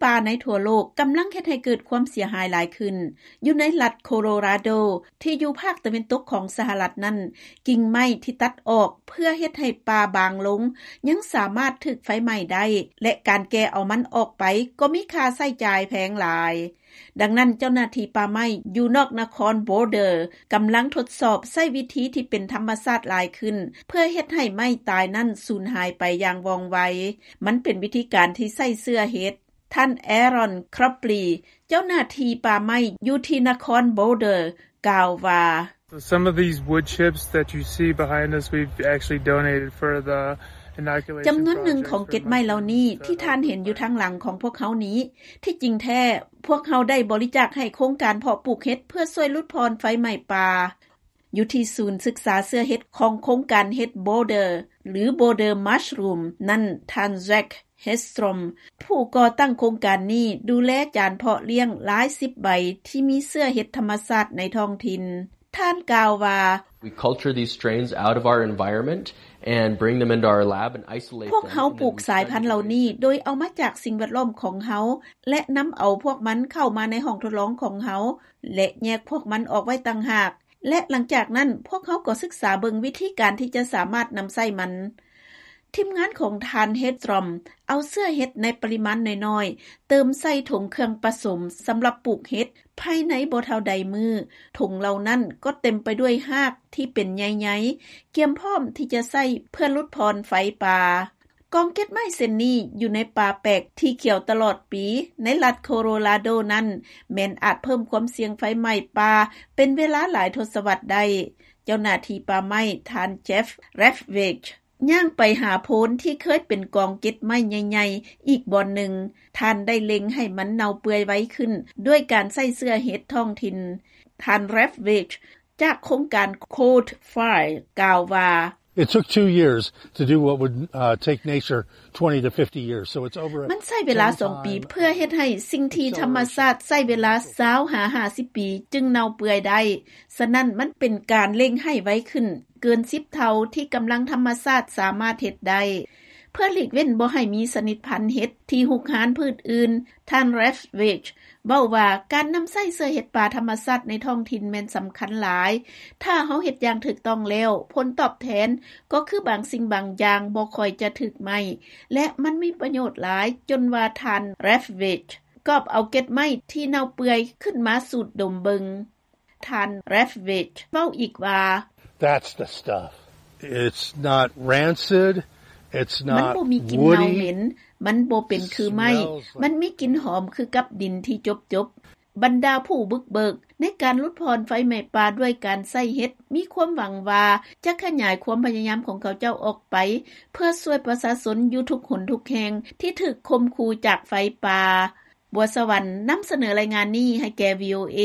ປ່າໃນທົ່ວໂລກກຳລັງເຮັດໃຫ້ເກີດຄວາມເສຍຫາຍຫຼາຍຂຶ້ນ. ຢູ່ໃນລັດໂຄໂລຣາໂດ ທີ່ຢູ່ພາກຕາເວັນຕົກຂອງສະຫະລັດນັ້ນ, ກິ່ງໄມ້ທີ່ຕັດອອກເພື່ອເຮັດໃຫ້ປ່າບາງລົງ ຍັງສາມາດຖືກໄຟໄໝ້ໄດ້ ແລະ ການແກ່ເອົາມັນອອກໄປກໍມີຄ່າໃຊ້ຈ່າຍແພງຫຼາຍ. ດັ່ງນັ້ນ, ເຈົ້າໜ້າທີ່ປ່າໄມ້ຢູ່ນອກນະຄອນໂບເດີ ກຳລັງທົດສອບໃຊ້ວິທີທີ່ເປັນທຳມະຊາດຫຼາຍຂຶ້ນ ເພື່ອເຮັດໃຫ້ໄມ້ຕາຍນັ້ນສູນຫາຍໄປຢ່າງວ່ອງໄວ. ມັນເປັນວິທີການທີ່ໃຊ້ເຊື້ອເຫັດ. ທ່ານ Aaron Cropley ເຈົ້າໜ້າທີ່ປ່າໄມ້ຢູ່ທີ່ນະຄອນໂບເດີ ກ່າວວ່າ: Some of these wood chips that you see behind us, we've actually donated for the inoculation project for ຈຳນວນໜຶ່ງຂອງເກັດໄມ້ເຫຼົ່ານີ້ທີ່ທ່ານເຫັນຢູ່ທາງຫຼັງຂອງພວກເຮົານີ້, ທີ່ຈິງແທ້ ພວກເຮົາໄດ້ບໍລິຈາກໃຫ້ໂຄງການເພາະປູກເຫັດເພື່ອຊ່ວຍຫຼຸດຜ່ອນໄຟໄໝ້ປ່າ. ຢູ່ທີ່ສູນສຶກສາເຊື້ອເຫັດຂອງໂຄງການເຫັດ Border ຫຼື Border Mushroom ນັ້ນ, ທ່ານ Zach Hedstrom ຜູ້ກໍ່ຕັ້ງໂຄງການນີ້ ດູແລຈານເພາະລ້ຽງຫຼາຍສິບໃບທີ່ມີເຊື້ອເຫັດທຳມະຊາດໃນທ້ອງຖິ່ນ. ທ່ານກ່າວວ່າ: We culture these strains out of our environment and bring them into our lab and isolate them. ພວກເຮົາປູກສາຍພັນເຫຼົ່ານີ້ໂດຍເອົາມາຈາກສິ່ງແວດລ້ອມຂອງເຮົາ ແລະ ນຳເອົາພວກມັນເຂົ້າມາໃນຫ້ອງທົດລອງຂອງເຮົາ ແລະ ແຍກພວກມັນອອກໄວ້ຕ່າງຫາກ ແລະ ຫຼັງຈາກນັ້ນ ພວກເຮົາກໍສຶກສາເບິ່ງວິທີການທີ່ຈະສາມາດນຳໃຊ້ມັນ. ທີມງານຂອງທ່ານ Hedstrom ເອົາເຊື້ອເຫັດໃນປະລິມານນ້ອຍໆ ເຕີມໃສ່ຖົງເຄື່ອງປະສົມສຳລັບປູກເຫັດ. ພາຍໃນບໍ່ເທົ່າໃດມື້, ຖົງເຫຼົ່ານັ້ນກໍເຕັມໄປດ້ວຍຮາກທີ່ເປັນໃຍໆ ກຽມພ້ອມທີ່ຈະໃຊ້ເພື່ອຫຼຸດຜ່ອນໄຟປ່າ. ກອງເກັດໄມ້ເຊັ່ນນີ້ຢູ່ໃນປ່າແປກທີ່ຂຽວຕະຫຼອດປີໃນລັດໂຄໂລຣາໂດນັ້ນ ແມ່ນອາດເພີ່ມຄວາມສ່ຽງໄຟໄໝ້ປ່າເປັນເວລາຫຼາຍທົດສະວັດໄດ້. ເຈົ້າໜ້າທີ່ປ່າໄມ້ ທ່ານ Jeff Ravage ຍ່າງໄປຫາໂພນທີ່ເຄີຍເປັນກອງເກັດໄມ້ໃຫຍ່ໆອີກບ່ອນໜຶ່ງ. ທ່ານໄດ້ເລັ່ງໃຫ້ມັນເນົ່າເປື່ອຍໄວຂຶ້ນດ້ວຍການໃຊ້ເຊື້ອເຫັດທ້ອງຖິ່ນ. ທ່ານ Ravage ຈາກໂຄງການ Cold Fire ກ່າວວ່າ: It took two years to do what would, uh, take nature twenty to fifty years. So it's over ມັນໃຊ້ເວລາສອງປີເພື່ອເຮັດໃຫ້ສິ່ງທີ່ທຳມະຊາດໃຊ້ເວລາຊາວຫາຫ້າສິບປີຈຶ່ງເນົ່າເປື່ອຍໄດ້. ສະນັ້ນ, ມັນເປັນການເລັ່ງໃຫ້ໄວຂຶ້ນເກີນສິບເທົ່າທີ່ກຳລັງທຳມະຊາດສາມາດເຮັດໄດ້. ເພື່ອຫຼີກເວັ້ນບໍ່ໃຫ້ມີຊະນິດພັນເຫັດທີ່ຮຸກຮານພືດອື່ນ, ທ່ານ Ravage ເວົ້າວ່າ ການນຳໃຊ້ເຊື້ອເຫັດປ່າທຳມະຊາດໃນທ້ອງຖິ່ນແມ່ນສຳຄັນຫຼາຍ. ຖ້າເຮົາເຮັດຢ່າງຖືກຕ້ອງແລ້ວ, ຜົນຕອບແທນກໍຄືບາງສິ່ງບາງຢ່າງບໍ່ຄ່ອຍຈະຖືກໄໝ້ ແລະ ມັນມີປະໂຫຍດຫຼາຍ ຈົນວ່າທ່ານ Ravage ກອບເອົາເກັດໄມ້ທີ່ເນົ່າເປື່ອຍຂຶ້ນມາສູດດົມເບິ່ງ. ທ່ານ Ravage ເວົ້າອີກວ່າ: That's the stuff. It's not rancid. It's not woody. ມັນບໍ່ມີກິ່ນເນົ່າເໝັນ, ມັນບໍ່ເປັນຄືໄມ້, ມັນມີກິ່ນຫອມຄືກັບດິນທີ່ຈົບໆ. ບັນດາຜູ້ບຸກເບີກໃນການຫຼຸດຜ່ອນໄຟໄໝ້ປ່າດ້ວຍການໃຊ້ເຫັດ ມີຄວາມຫວັງວ່າຈະຂະຫຍາຍຄວາມພະຍາຍາມຂອງເຂົາເຈົ້າອອກໄປ ເພື່ອຊ່ວຍປະຊາຊົນຢູ່ທຸກຫົນທຸກແຫ່ງທີ່ຖືກຂົ່ມຂູ່ຈາກໄຟປ່າ. ບົວສະຫວັນ ນຳສະເໜີລາຍງານນີ້ໃຫ້ແກ່ VOA.